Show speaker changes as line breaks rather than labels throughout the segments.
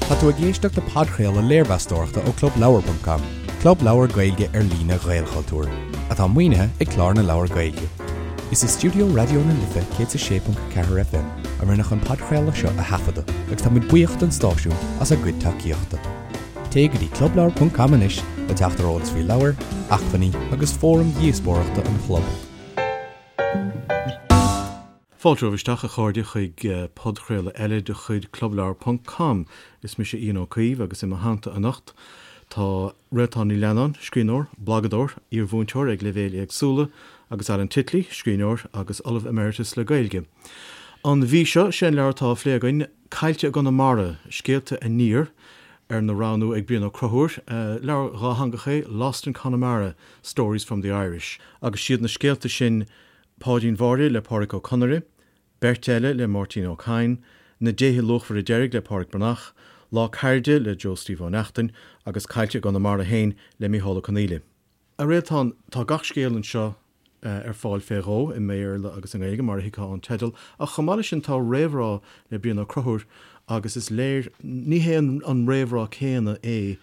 Tá tú ag éisteacht le podchraoladh léirmheastóireachta ó ClubLeabhar.com, club leabhar Gaeilge ar líne Ghaelchultúir, atá maoinithe ag Clár na Leabhar Gaeilge. Is i stiúideo Raidió na Life 106.4 FM a rinneadh an podchraoladh seo a thaifeadadh agus tá muid buíoch don stáisiún as a gcuid tacaíochta. Téigh go dtí clubleabhar.com anois le teacht ar eolas faoi leabhair, acmhainní agus fóraim dhíospóireachta an chlub.
Fáilte romhaibh isteach, a chairde, chuig podchraoladh eile de chuid Clubleabhar ponc com. Is mise Ian Ó Caoimh agus i mo theannta anocht tá Réaltán Ní Leannáin, scríbhneoir, blagadóir, iar-mhúinteoir ag leibhéil éagsúla, agus Alan Titley, scríbhneoir agus Ollamh Emeritus le Gaeilge. An mhí seo, sé an leabhar atá á phlé againn, Caillte i gConamara, Scéalta Aniar, arna roghnú ag Brian Ó Conchúir. Leabhar dhátheangach é Lost in Connemara, Stories from the Irish, agus siad na scéalta sin Páidín Mháire le Pádraic Ó Conaire, Beirt Eile le Máirtín Ó Cadhain, Na Déithe Luachmhara Deiridh le Pádraic Breathnach, Lá Cairde le Joe Steve Ó Neachtain agus Caillte i gConamara féin le Mícheál Ó Conghaile. A Réaltán, tá gach scéal anseo ar fáil fé dhó, i mBéarla agus i nGaeilge, mar a thuigfeá ón teideal, ach chomh maith leis sin tá réamhrá le Brian Ó Conchúir agus is léir, ní hé an réamhrá céanna é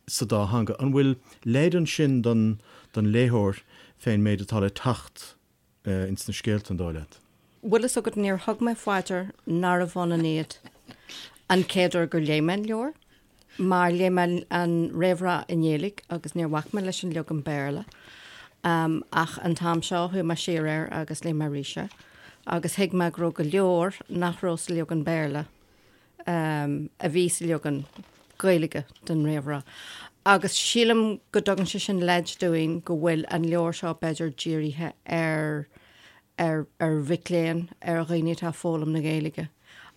sa dá theanga. An bhfuil leid ansin don léitheoir fén méid atá le teacht ins na scéalta, an dóigh leat?
Bhfuil fhios agat, níor thug mé faoi dear nárbh ionann iad an chéad uair gur léigh mé an leabhar, mar léigh mé an réamhrá i nGaeilge agus níor bhac mé leis an leagan Béarla. Ach an t-am seo chuaigh mé siar air agus léigh mé arís é agus thuig mé go raibh go leor nach raibh sa leagan Béarla. a bhí sa leagan Gaeilge den réamhrá. Agus sílim go dtugann sé sin leid dúinn go bhfuil an leabhar seo b'fhéidir dírithe ar ar ar mhic léinn, ar dhaoine atá ag foghlaim na Gaeilge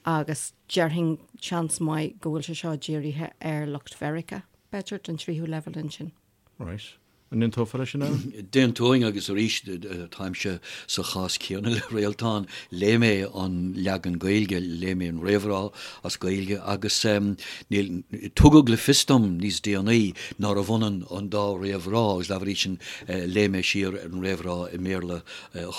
agus déarfainn seans maith go bhfuil sé seo dírithe ar lucht Mheiriceá, b'fhéidir, don tríú leibhéal ansin.
Right. An n-aontófá leis sin, Alan?
D'aontóinn agus arís táimse sa chás céanna le Réaltán. Léigh mé an leagan Gaeilge, léigh mé an réamhrá as Gaeilge agus níl, tugadh le fios dom níos déanaí nárbh ionann an dá réamhrá agus dá bhrí sin léigh mé siar ar an réamhrá i mBéarla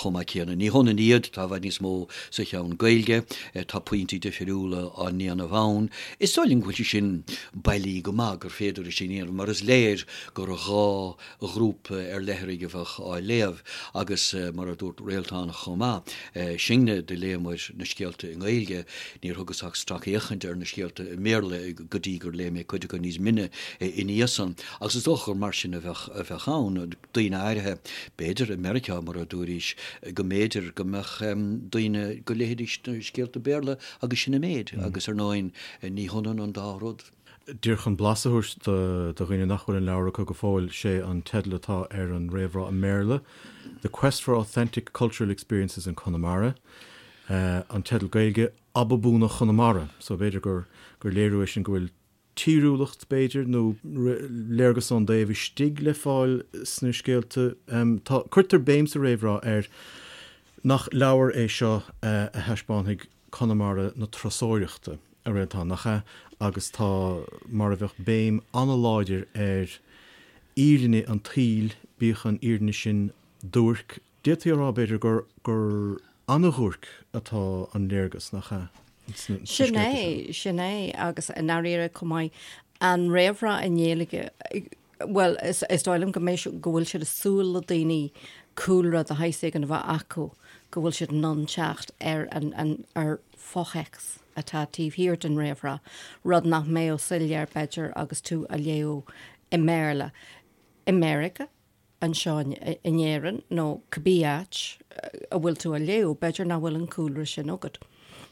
chomh maith céanna. Ní hionann iad, tá i bhfad níos mó sa cheann Gaeilge, tá pointí difriúla á ndéanamh ann. Is dóigh liom go bhfuil sé sin bailí go maith gur féidir é sin a dhéanamh mar is léir gur 2 ghrúpa ar leithrigh a bheadh á léamh agus mar a dúirt Réaltán chomh maith, sinne do léamair na scéalta i nGaeilge, níor thugas ach stracfhéachaint ar na scéalta i mBéarla go dtí gur léigh mé cuid acu níos mine ina dhiaidh san. Agus is dócha gur mar sin a bheadh a bheadh ann, daoine áirithe, b'fhéidir i Meiriceá mar a dúraís, go mb'fhéidir go mbeadh daoine go léifidís na scéalta Béarla agus sin an méid agus ar ndóigh ní hionann an dá rud.
Díreach chun blas a thabhairt do dhaoine nach bhfuil an leabhar acu go fóill, sé an teideal atá ar an réamhrá i mBéarla, The Quest for Authentic Cultural Experiences in Connemara. An teideal Gaeilge, Ababúna Chonamara. So b'fhéidir gur gur léiriú é sin go bhfuil tíriúlacht, b'fhéidir, nó léargas ón dtaobh istigh le fáil sna scéalta. Tá, cuirtear béim sa réamhrá ar nach leabhar é seo a thaispeánfaidh Conamara na turasóireachta, a Réaltán, nach ea? Agus tá mar a bheadh béim an-láidir ar fhírinne an tsaoil, bíodh an fhírinne sin duairc. D'fhéadfaí a rá, b'fhéidir, gur gur an-dhuairc atá an léargas, nach ea,
sna Sin scéalta seo? é, sin é, agus i ndáiríre chomh maith, an réamhrá i nGaeilge, Bhuel, is dóigh liom go mbeidh, go bhfuil siad ag súil le daoine cúlra de shaghas éigin a bheith acu, go bhfuil siad in ann teacht ar an, an, ar fhothéacs atá taobh thiar den réamhrá, rud nach mbeadh soiléir, b'fhéidir, agus tú á léamh i mBéarla. I Meiriceá, anseo in Éirinn nó cibé áit a bhfuil tú á léamh, b'fhéidir nach bhfuil an cúlra sin agat.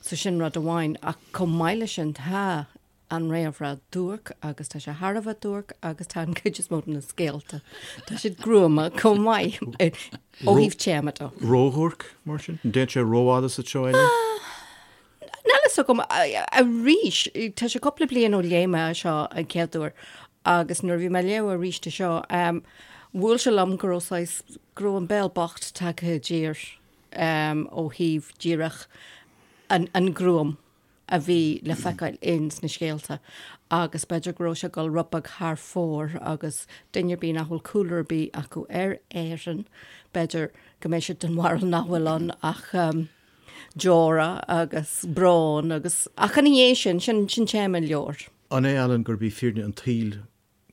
So sin rud amháin, ach chomh maith leis sin tá an réamhrá duairc agus tá sé thar a bheith duairc agus tá an cuid is mó de na scéalta, tá siad gruama chomh maith ó thaobh téama
de. Ródhuairc, mar sin? An dtéann sé rófhada sa treo eile?
Níl a fhios agam. Arís, tá sé cúpla bliain ó léigh mé seo an chéad uair agus nuair a bhí mé ag léamh arís é seo, bhuail sé liom go raibh saghas, go raibh an béal bocht tagtha i dtír ó thaobh díreach an gruaim. a bhí le feiceáil ins na scéalta agus b'fhéidir go raibh sé ag dul rud beag thar fóir agus duine ar bith nach bhfuil cúlra ar bith acu ar Éirinn, b'fhéidir go mbeidh siad den bharúil nach bhfuil ann ach. deora agus brón agus, ach ina dhiaidh sin, sin, sin téama an leabhair.
An é, Alan, gurb í fírinne an tsaoil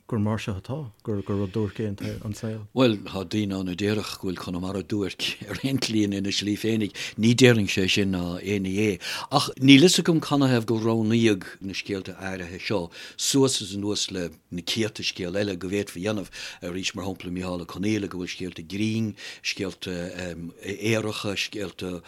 gur mar seo atá, gur rud duairc é an saol?
Bhuel, tá daoine ann a déarfadh go bhfuil Conamara duairc ar aon tslí ina slí féinig. Ní déarfainnse é sin ná aon ní é. Ach níl fhios agam canathaobh gur roghnaíodh na scéalta áirithe seo suas is anuas le na céadta scéal eile go bhféadfaí a dhéanamh. Arís, mar shampla, Micheál Ó Conghaile, go bhfuil scéalta grinn, scéalta aoracha, scéalta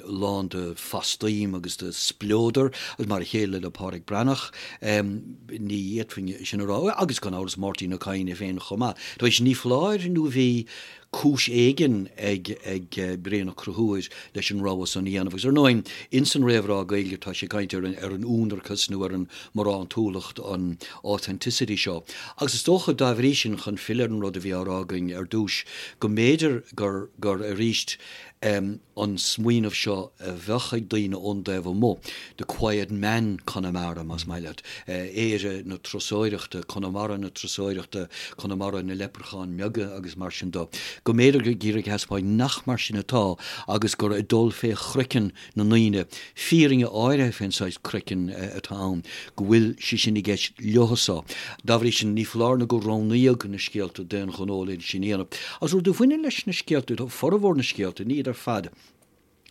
lán de phastaím agus de spleodar, agus mar a chéile le Pádraic Breathnach. Ní fhéadfainn sin a rá. Agus gan amhras Máirtín Ó Cadhain é féin chomh maith. Tar éis ní foláir nó bhí cúis éigin ag ag Brian Ó Conchúir leis an rogha san a dhéanamh. Agus ar ndóigh, ins an réamhrá Gaeilge tá sé ag caint ar an ar an ionracas nó ar an mbarántúlacht, an authenticity seo. Agus is dócha, dá bhrí sin, chun filleadh ar an rud a bhí á rá againn ar dtús, go mb'fhéidir gur gur arís an smaoineamh seo a bheadh ag daoine ón dtaobh amuigh, the quiet man Connemara, más maith leat, Éire na turasóireachta, Conamara na turasóireachta, Conamara na leipreachán mbeaga agus mar sin de, go mb'fhéidir gur ag iarraidh a thaispeáint nach mar sin atá agus gur ag dul fé chraiceann na ndaoine, fírinne áirithe fén saghas craiceann atá ann, go bhfuil sé sin i gceist leothusa. Dá bhrí sin, ní foláir nó gur roghnaíodh na scéalta d'aon ghnó le sin a dhéanamh. Agus rud a bhaineann leis na scéalta, tá formhór na scéalta, ní iad ar fad,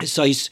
is saghas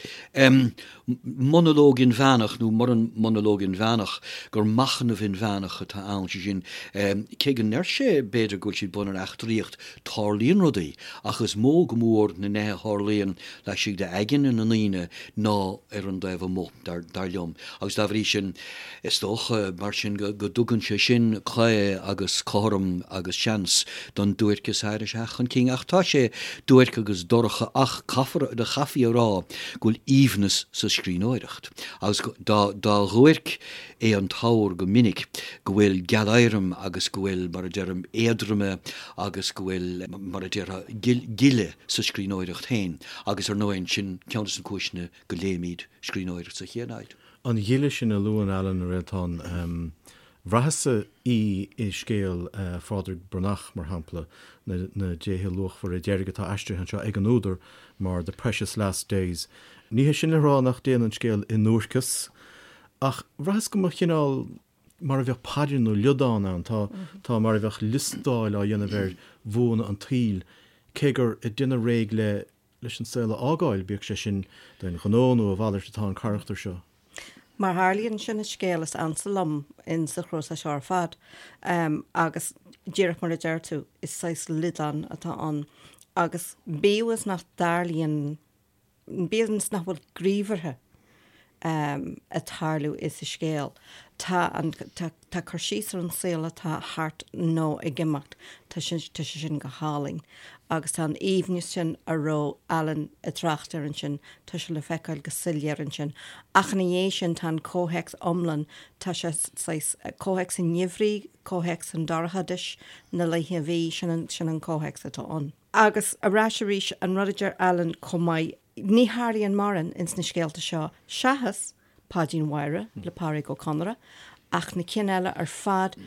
monalóg inmheánach, nó muran monalóg inmheánach, gur machnamh inmheánach atá ann, sé sin, cé go ndeir sé, b'fhéidir, go bhfuil siad bunaithe ar eachtraíocht, tarlaíonn rudaí, ach is mó go mór na nithe a tharlaíonn laistigh d'aigne na ndaoine ná ar an dtaobh amuigh, dar liom. Agus dá bhrí sin, is dócha, mar sin, go dtugann sé sin caoi agus cothrom agus seans don duairceas áirithe a theacht chun cinn. Ach tá sé duairc agus dorcha ach caithfear, chaithfí a rá go bhfuil aoibhneas sa scríbhneoireacht. Agus dá dhuairc é an t-ábhar go minic, go bhfuil gealéirim agus go bhfuil, mar a deirim, éadroime agus go bhfuil, mar a déarfá, gile sa scríbhneoireacht féin agus ar ndóigh sin ceann de na cúiseanna go léimid scríbhneoireacht sa chéad áit.
An ghile sin a luann Alan, a Réaltán, bhraitheas-sa í i scéal Phádraig Breathnach, mar shampla, Na Déithe Luachmhara Deiridh atá aistrithe anseo ag an údar mar The Precious Last Days. Ní hé sin le rá nach dtéann an scéal i nduairceas, ach bhraitheas go mba chineál mar a bheadh paidir nó liodán ann, tá, tá mar a bheadh liostáil á dhéanamh ar bhuanna an tsaoil, cé gur ag déanamh réidh le, leis an saol a fhágáil, bíodh sé sin d'aon ghnó nó a mhalairt atá an carachtar seo.
Mar a tharlaíonn, sin an scéal is ansa liom in sa chnuasach seo ar fad, agus díreach mar a deir tú, is saghas liodán atá ann, agus bíodh is nach dtarlaíonn, Bíodh is nach bhfuil gníomhartha ag tarlú sa scéal, tá an, tá cur síos ar an saol atá thart nó ag imeacht, tá sé, tá sé sin go hálainn. Agus tá an aoibhneas sin a raibh Alan ag trácht air ansin, tá sé le feiceáil go soiléir ansin. Ach ina dhiaidh sin tá an comhthéacs iomlán, tá sé saghas, comhthéacs an gheimhridh, comhthéacs an dorchadais, na laethe a bhí, sin an, sin an comhthéacs atá ann. Agus ar ais arís, an rud a deir Alan chomh maith, ní tharlaíonn mórán ins na scéalta seo seachas Páidín Mháire le Pádraic Ó Conaire, ach na cinn eile ar fad,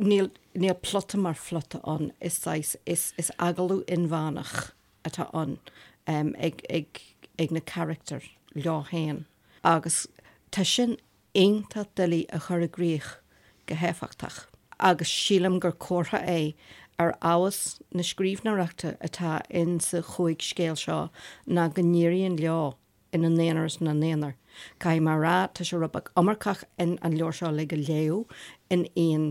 níl, níl plota mar phlota ann, is saghas, is, is agallamh inmheánach atá ann ag, ag, ag na carachtair leo féin. Agus tá sin iontach doiligh a chur i gcrích go héifeachtach agus sílim gur comhartha é ar fheabhas na scríbhneoireachta atá in sa chúig scéal seo ná go n-éiríonn leo ina n-aonar is ina n-aonar. Caithfidh mé a rá, tá sé rud beag iomarcach in an leabhar seo uilig a léamh in aon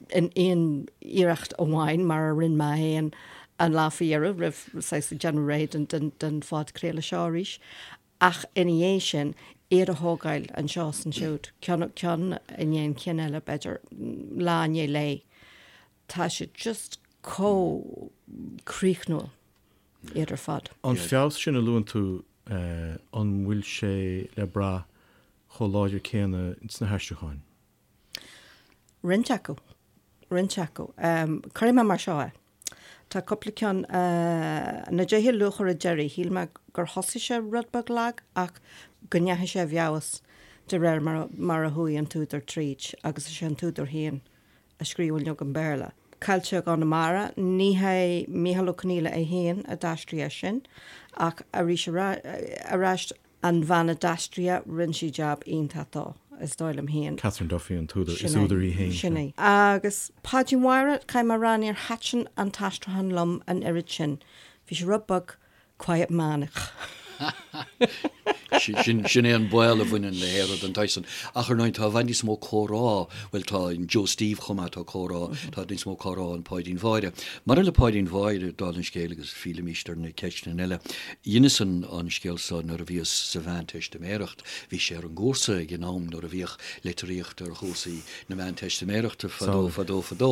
in aon iarracht amháin mar a rinne mé féin an lá faoi dheireadh roimh saghas déanamh réidh don don phodchraoladh seo arís. Ach ina dhiaidh sin, iad a thógáil anseo is ansiúd, ceann, ceann i ndiaidh an chinn eile, b'fhéidir, lá i ndiaidh lae, tá siad just chomh críochnúil, iad ar fad.
An feabhas sin a luann tú, an bhfuil sé le brath chomh láidir céanna sna haistriúcháin?
Roinnt acu. Roinnt acu. Cuirfidh mé mar seo é. Tá cúpla ceann, Na Déithe Luachmhara Deiridh, shíl mé gur thosaigh sé rud beag lag ach go ndeachaigh sé i bhfeabhas de réir mar a chuaigh an t-údar tríd agus is é an t-údar féin a scríobh an leagan Béarla. Caillte i gConamara, ní hé Mícheál Ó Conghaile é féin a d'aistrigh é sin, ach arís ar ais an bhean a d'aistrigh é, rinne sí jab iontach dó, is dóigh liom féin.
Catherine Duffy an t-údar, is údar í féin.
Sin é. Agus Páidín Mháire, caithfidh mé a rá, níor thaitin an t-aistriúchán liom an oiread sin. Bhí sé rud beag quiet manach.
Sin é an baol a bhaineann le hearra den tsaghas san. Ach ar ndóigh tá i bhfad níos mó comhrá, bhuel tá in Joe Steve chomh maith, tá comhrá, tá níos mó comhrá in Páidín Mháire. Maidir le Páidín Mháire, dála an scéil agus fillimís ar na ceisteanna eile, dheineas an scéal so nuair a bhíos sa Mheánteistiméireacht. Bhí sé ar an gcúrsa ag an am nuair a bhíodh litríocht ar chúrsaí na Meánteistiméireachta fadó, fadó, fadó.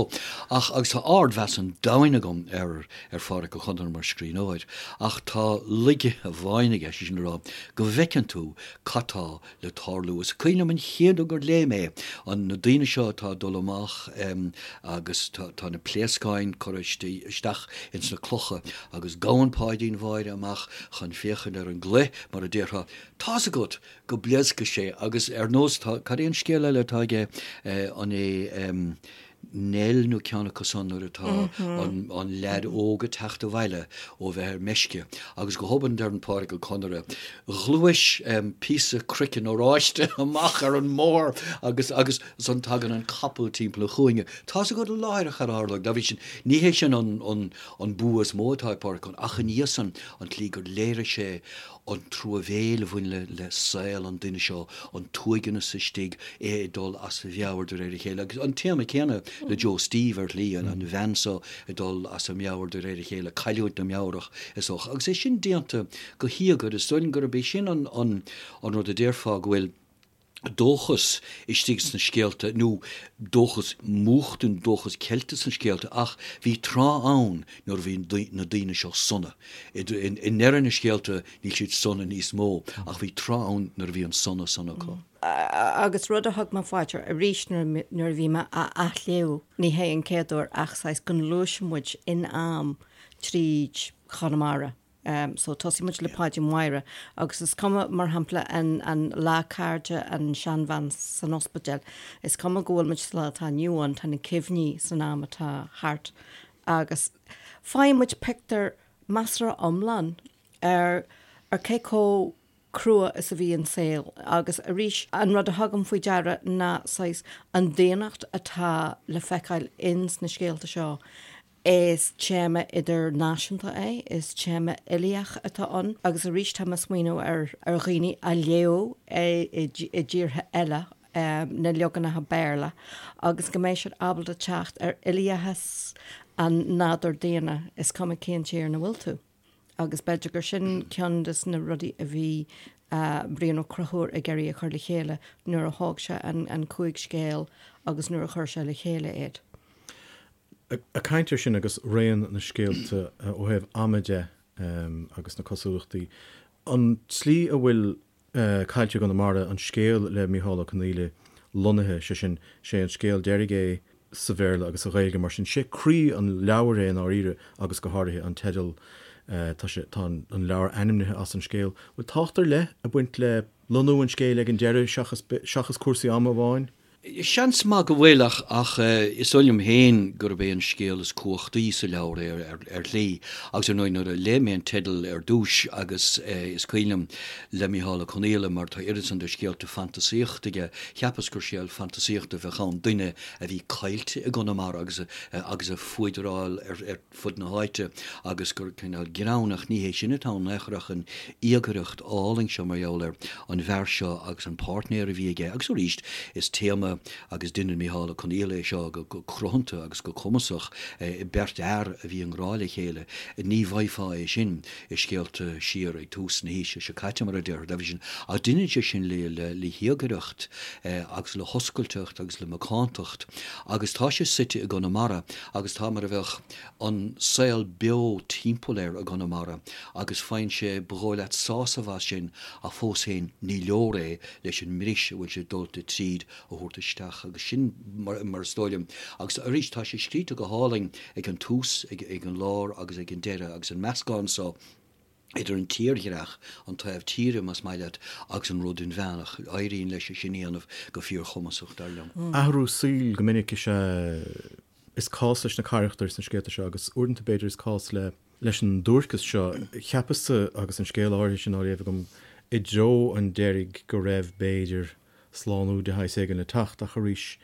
Ach, agus tá ardmheas an domhain agam ar ar Phádraic Ó Conaire mar scríbhneoir, ach tá laige amháin aige, sé sin le rá, go bhfeiceann tú cad tá le tarlú. Is cuimhin liom an chéad uair gur léigh mé an, na daoine seo atá ag dul amach agus tá na pléascáin curtha isteach ins na clocha agus gabhann Páidín Mháire amach chun féachaint ar an gclaí, mar a déarfá, tá's agat go bpléascfaidh sé agus ar nós, tá, cad é an scéal eile atá aige, an é, Nell nó ceann acu san nuair atá an leaid óg ag teacht abhaile ó bheith ar meisce agus go hobann deireann Pádraic Ó Conaire, Ghluais píosa craiceann oráiste amach ar an mbóthar agus agus ansan tagann an capall timpeall an chúinne. Tá's agat láithreach cad a tharlóidh. Dá bhrí sin, ní hé sin an an bua is mó atá ag Pádraic Ó ach ina dhiaidh san an tslí gur léirigh sé an truamhéil a bhain le saol an duine seo, an t-uaigneas istigh, é ag dul as a mheabhair de réir a chéile. Agus an téama céanna le Joe Steve ar shlí, an bhean seo ag dul as a meabhair de réir a chéile, cailliúint na meabhrach is dócha. Agus é sin déanta go híogair, is dóigh liom gurb é sin an rud a déarfá go bhfuil dóchas istigh sna scéalta, nó dóchas múchta nó dóchas ceilte sna scéalta, ach bhí tráth ann nuair a bhí na daoine seo sona. I ndeireadh na scéalta níl siad sona níos mó, ach bhí tráth ann nuair a bhí an sona san acu.
Agus rud a thug mé faoi deara arís nuair a bhí mé á athléamh, ní hé an chéad uair ach saghas go ngluaiseann muid in am tríd Chonamara. So tosaíonn muid le Páidín Mháire agus is cuma, mar shampla, an an lá cairde, an seanbhean san ospidéal, is cuma go bhfuil muid sa lá atá inniu ann, tá na cuimhní san am atá thart agus faigheann muid pictiúr measartha iomlán ar ar cé chomh crua is a bhí an saol agus arís an rud a thugaim faoi deara ná saghas an daonnacht atá le feiceáil ins na scéalta seo. Is téama idirnáisiúnta é, is téama uilíoch atá ann agus arís tá mé ag smaoineamh ar ar dhaoine a léadh é i dtíortha eile, na leaganacha Béarla, agus go mbeidh siad ábalta teacht ar uilíochas an nádúr daonna, is cuma cén tír ina bhfuil tú. Agus b'fhéidir gur sin ceann de na rudaí a bhí Brian Ó Conchúir ag iarraidh a chur le chéile nuair a thóg sé an chúig scéal agus nuair a chuir sé le chéile iad.
Ag caint air sin agus raon na scéalta ó thaobh ama de agus na cosúlachtaí, an tslí a bhfuil Caillte i gConamara, an scéal le Micheál Ó Conghaile, lonnaithe, sé sin, sé an scéal deiridh é sa Bhéarla agus sa Ghaeilge, mar sin, sé croí an leabhair é i ndáiríre agus go háirithe an teideal, tá sé, tá an leabhar ainmnithe as an scéal. Bhfuil tábhacht ar leith ag baint le lonnú an scéil ag an deireadh seachas, seachas cúrsaí ama amháin?
Seans maith go bhfuil, ach ach is dóigh liom féin gurb é an scéal is cumhachtaí sa leabhar é ar ar shlí. Agus ar ndóigh nuair a léigh mé an teideal ar dtús agus is cuimhin liom le Micheál Ó Conghaile mar tá oiread san de scéalta fantasaíochta aige, cheapas gur scéal fantasaíochta a bheadh ann, duine a bhí caillte i gConamara agus agus ag fuadráil ar ar fud na háite agus gur cineál greann, ach ní hé sin atá ann in aon chor ach an íogaireacht álainn seo mar gheall ar an bhfear seo agus an páirtnéir a bhí aige. Agus arís, is téama agus deineann Micheál Ó Conghaile é seo go cruthanta agus go cumasach, beirt fhear a bhí i ngrá le chéile. Ní bhfaighfeá é sin i scéalta siar ag tús na haoise seo caite, mar a déarfá, dá bhrí sin. Ach deineann sé sin le híogaireacht agus le hoscailteacht agus le macántacht agus tá sé suite i gConamara agus tá mar a bheadh an saol beo timpeall air i gConamara agus faigheann sé, ba dhóigh leat, sásamh as sin ach fós féin ní leor é leis an mbris a bhfuil sé dulta tríd a thabhairt isteach agus sin mar is dóigh liom agus arís tá sé scríte go hálainn ag an tús, ag an lár agus ag an deireadh agus an meascán so idir an tírdhreach, an taobh tíre más maith leat, agus an rud inmheánach. Éiríonn leis é sin a dhéanamh go fíorchumasach, dar liom.
Athrú saoil go minic is ea. Is cás leis na carachtair sna scéalta seo agus uaireanta b'fhéidir is cás le leis an duairceas seo. Cheapas-sa agus an scéal áirithe sin á léamh agam i dtreo an deiridh go raibh, b'fhéidir, slánú de shaghas éigin le teacht ach arís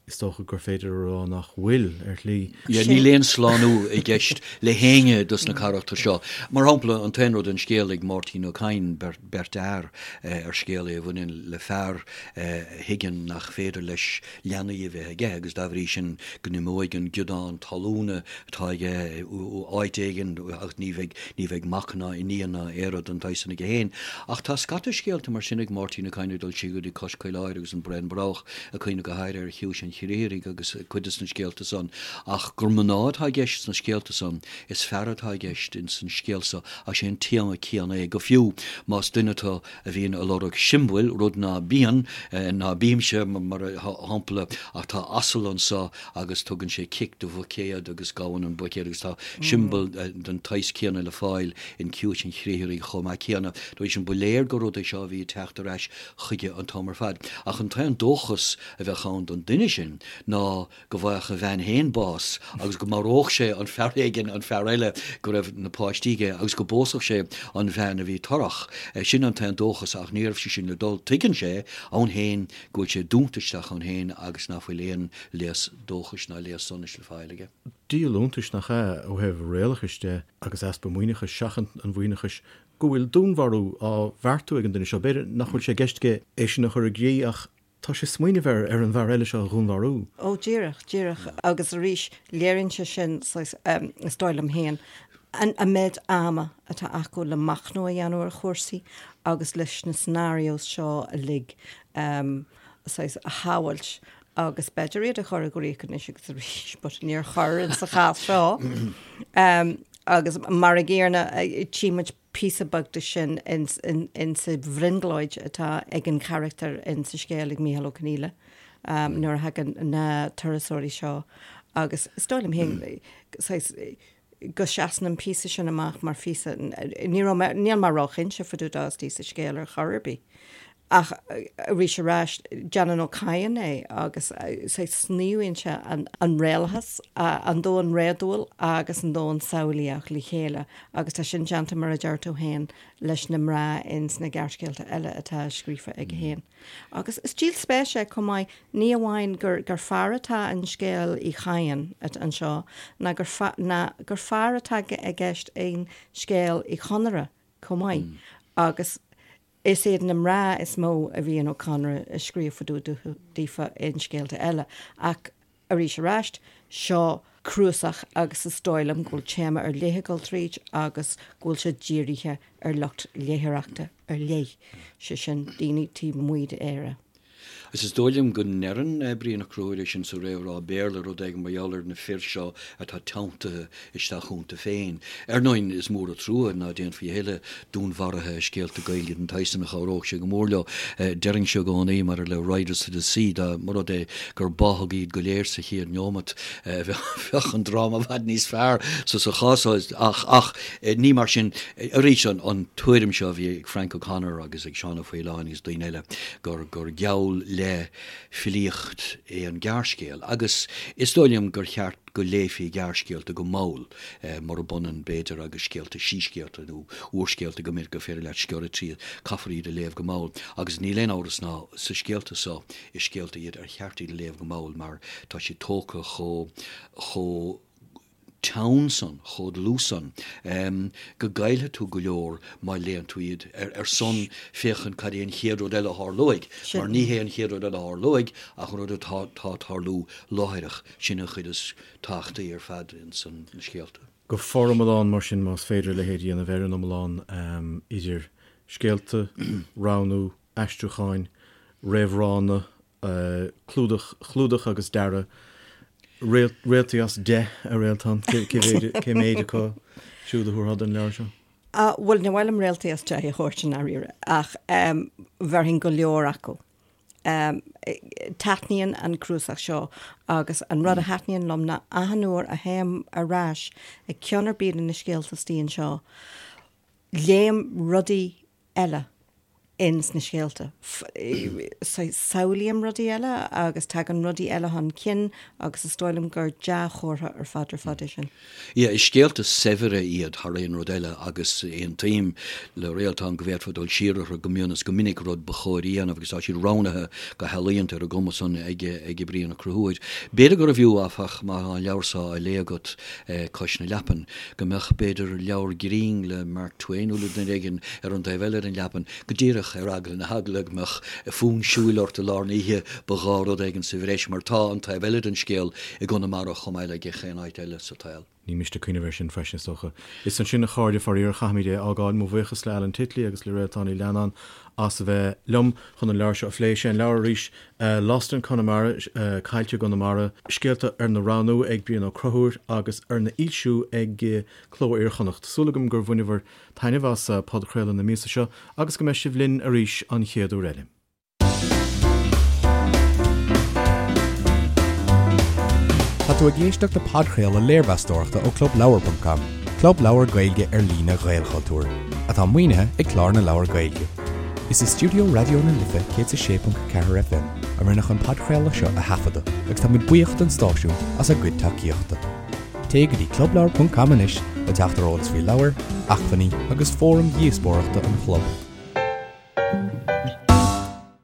is dócha gur féidir a rá nach bhfuil, ar shlí.
Yeah, níl aon slánú i gceist le héinne dos na carachtair seo. Mar shampla, an t-aon rud an scéal ag Máirtín Ó Cadhain, Beirt Fhear, ar scéal é a bhaineann le fear a thuigeann nach féidir leis leanaí a bheith aige agus dá bhrí sin go n-imeoidh an giodán talúna atá aige áit éigin ach ní bheidh, ní bheidh mac ná iníon ná aon rud den tsaghas san aige féin. Ach tá scata scéalta mar sin ag Máirtín Ó Cadhain ag dul siar go dtí Cois Caoláire agus An Braon Broghach, ag cuimhneamh go háirithe ar Chiumhais an Chriathraigh agus cuid de na scéalta san. Ach gur mná atá i gceist sna scéalta san, is fear atá i gceist ins an scéal so ach sé an téama céanna é, go fiú más duine tú a bhíonn ag lorg siombail, rud ná bíonn, ná bímse, mar shampla, ach tá asal anso agus tugann sé cic do bhuicéad agus gabhann an buicéad agus tá siombail den tsaghas céanna le fáil in Ciumhais an Chriathraigh chomh maith céanna. Dá bhrí sin, ba léir gur rud é seo a bhí ag teacht ar ais chuige an t-am ar fad. Ach an t-aon dóchas a bheadh ann don duine sin ná go bhfaigheadh a bhean féin bás agus go maródh sé an fear éigin, an fear eile go raibh na páistí aige agus go bpósfadh sé an bhean a bhí torrach. Sin an t-aon dóchas ach ní raibh sé sin le dul. Tuigeann sé ann féin go bhfuil sé dúnta isteach ann féin agus nach bhfuil aon léas dóchais ná léas sonais le fáil aige.
Díol iontais nach ea, ó thaobh réalachais de agus easpa maoithneachais, seachaint an mhaoithneachais, go bhfuil dúnmharú á bheartú ag an duine seo. B'fhéidir nach bhfuil sé i gceist aige é sin a chur i gcrích ach Tá sé ag smaoineamh ar ar an bhfear eile seo a dhúnmharú.
Ó, díreach, díreach. Agus arís, léiríonn sé sin, saghas, is dóigh liom féin, an méid ama atá acu le machnamh a dhéanamh ar chúrsaí agus leis na scenarios seo uilig, saghas, a shamhailt agus b'fhéidir iad a chur i gcrích anois agus arís, but níor chuir in sa chás seo. Agus mar an gcéanna, tchí muid píosa beag de sin ins sa bhrionglóid atá ag an charachtar in sa scéal ag Mícheál Ó Conghaile nuair a thagann na turasóirí seo agus is dóigh liom féin saghas go seasann an píosa sin amach mar phíosa ní raibh mé níl mé róchinnte fá dtaobh dó istigh sa scéal ar chor ar bith. Ach arís ar ais, déanann Ó Cadhain é agus saghas sníomhann sé an réalachas, an domhan réadúil agus an domhan samhlaíoch le chéile agus tá sin déanta, mar a deir tú féin, leis na mná ins na gearrscéalta eile atá scríofa aige féin. Agus is díol spéise é chomh maith, ní amháin gur gur fear atá in scéal Uí Chadhain anseo ná gur ná gur fear atá i gceist in scéal Uí Chonaire chomh maith agus Is iad na mná is mó a bhíonn Ó Conaire ag scríobh fá dtaobh daofa in scéalta eile, ach arís aráist, seo cnuasach agus is dóigh liom go bhfuil téama ar leith ag dul tríd agus go bhfuil sé dírithe ar lucht léitheoireachta ar leith, sé sin, daoine taobh amuigh d'Éire.
Agus is dóigh liom go ndeireann Brian Ó Conchúir é sin sa réamhrá Béarla, rud éigin mar gheall ar na fir seo atá teanntaithe isteach iontu féin. Ar ndóigh, is mór an trua ná déanfaí a thuilleadh dúnmharuithe i scéalta Gaeilge den tsaghas san, chabhródh sé go mór leo. Déarfainnse i gcónaí, maidir le Riders to the Sea, dá mba rud é gur báthadh iad go léir sa chéad neomat, bheadh an dráma i bhfad níos fearr sa chás so. Ach, ach, ní mar sin. Arís, an tuairim seo a bhí ag Frank O'Connor agus ag Seán Ó Faoláin agus daoine eile, gur gur geall le filíocht é an gearrscéal agus is dóigh liom gur cheart go léifí gearrscéalta go mall, murab ionann, b'fhéidir, agus scéalta, síscéalta nó úrscéalta go minic gur féidir leat sciorradh tríd, caithfear iad a léamh go mall agus níl aon amhras ná sa scéalta so, is scéalta iad ar cheart iad a léamh go mall mar tá siad tógtha chomh chomh teann san, chomh dlúth san, go gcaillfidh tú go leor má léann tú iad ar son féachaint cad é an chéad rud eile a tharlóidh, mar ní hé an chéad rud eile a tharlóidh ach an rud atá ag tarlú láithreach, sin an chuid is tábhachtaí ar fad ins na scéalta.
Go foriomlán, mar sin, más féidir a leithéid a dhéanamh ar an iomlán, idir scéalta, roghnú, aistriúcháin, réamhránna, clúdach, clúdach agus dearadh, réaltaí as 10 a Réaltán, cé méid acu siúd a thabharfá don leabhar seo?
Bhuel, ní maith liom réaltaí as 10 a thabhairt i ndáiríre, ach bhéarfainn go leor acu. Taitníonn an cnuasach seo agus an rud a thaitníonn liom ná achan uair a théim ar ais ag ceann ar bith de na scéalta istigh anseo, léim rudaí eile. ins na scéalta. Samhlaím rudaí eile agus tagann rudaí eile chun cinn agus is dóigh liom gur dea-chomhartha ar fad ar fad é sin.
Yeah, is scéalta saibhre iad thar aon rud eile agus aontaím le Réaltán go bhféadfá dul siar orthu go mion is go minic, rud ba chóir a dhéanamh agus tá siad roghnaithe go healaíonta ar an gcuma san ag ag Brian Ó Conchúir. B'fhéidir gurbh fhiú, áfach, má tá an leabhar seo á léamh agat cois na leapan, go mbeadh, b'fhéidir, leabhar grinn le Mark Twain nó le duine éigin ar an taobh eile den leapan, go díreach ar eagla na heagla go mbeadh fonn siúil ort i lár na hoíche, ba ghá rud éigin sa bhreis, mar tá an taobh eile den scéal i gConamara chomh maith le gach aon áit eile sa tsaol.
Ní miste cuimhneamh air sin freisin, is dócha. Is ansin, a chairde, faraor, caithfimid é a fhágáil. Mo bhuíochas le Alan Titley agus le Réaltán Ní Leannáin as a bheith liom chun an leabhar seo a phlé. Sé an leabhar arís, Lost in Connemara, Caillte i gConamara, scéalta arna roghnú ag Brian Ó Conchúir agus arna fhoilsiú ag Cló Iar-Chonnacht. Súil agam gur bhaineabhair taitneamh as podchraoladh na míosa seo agus go mbeidh sibh linn arís an chéad uair eile.
Tá tú ag éisteacht le podchraoladh léirmheastóireachta ó ClubLeabhar.com, club leabhar Gaeilge ar líne Ghaelchultúir, atá maoinithe ag Clár na Leabhar Gaeilge. Is i stiúideo Raidió na Life 106.4 FM a rinneadh an podchraoladh seo a thaifeadadh agus táimid buíoch don stáisiún as a gcuid tacaíochta. Téigh go dtí clubleabhar.com anois le teacht ar eolas faoi leabhair, acmhainní agus fóraim dhíospóireachta an chlub.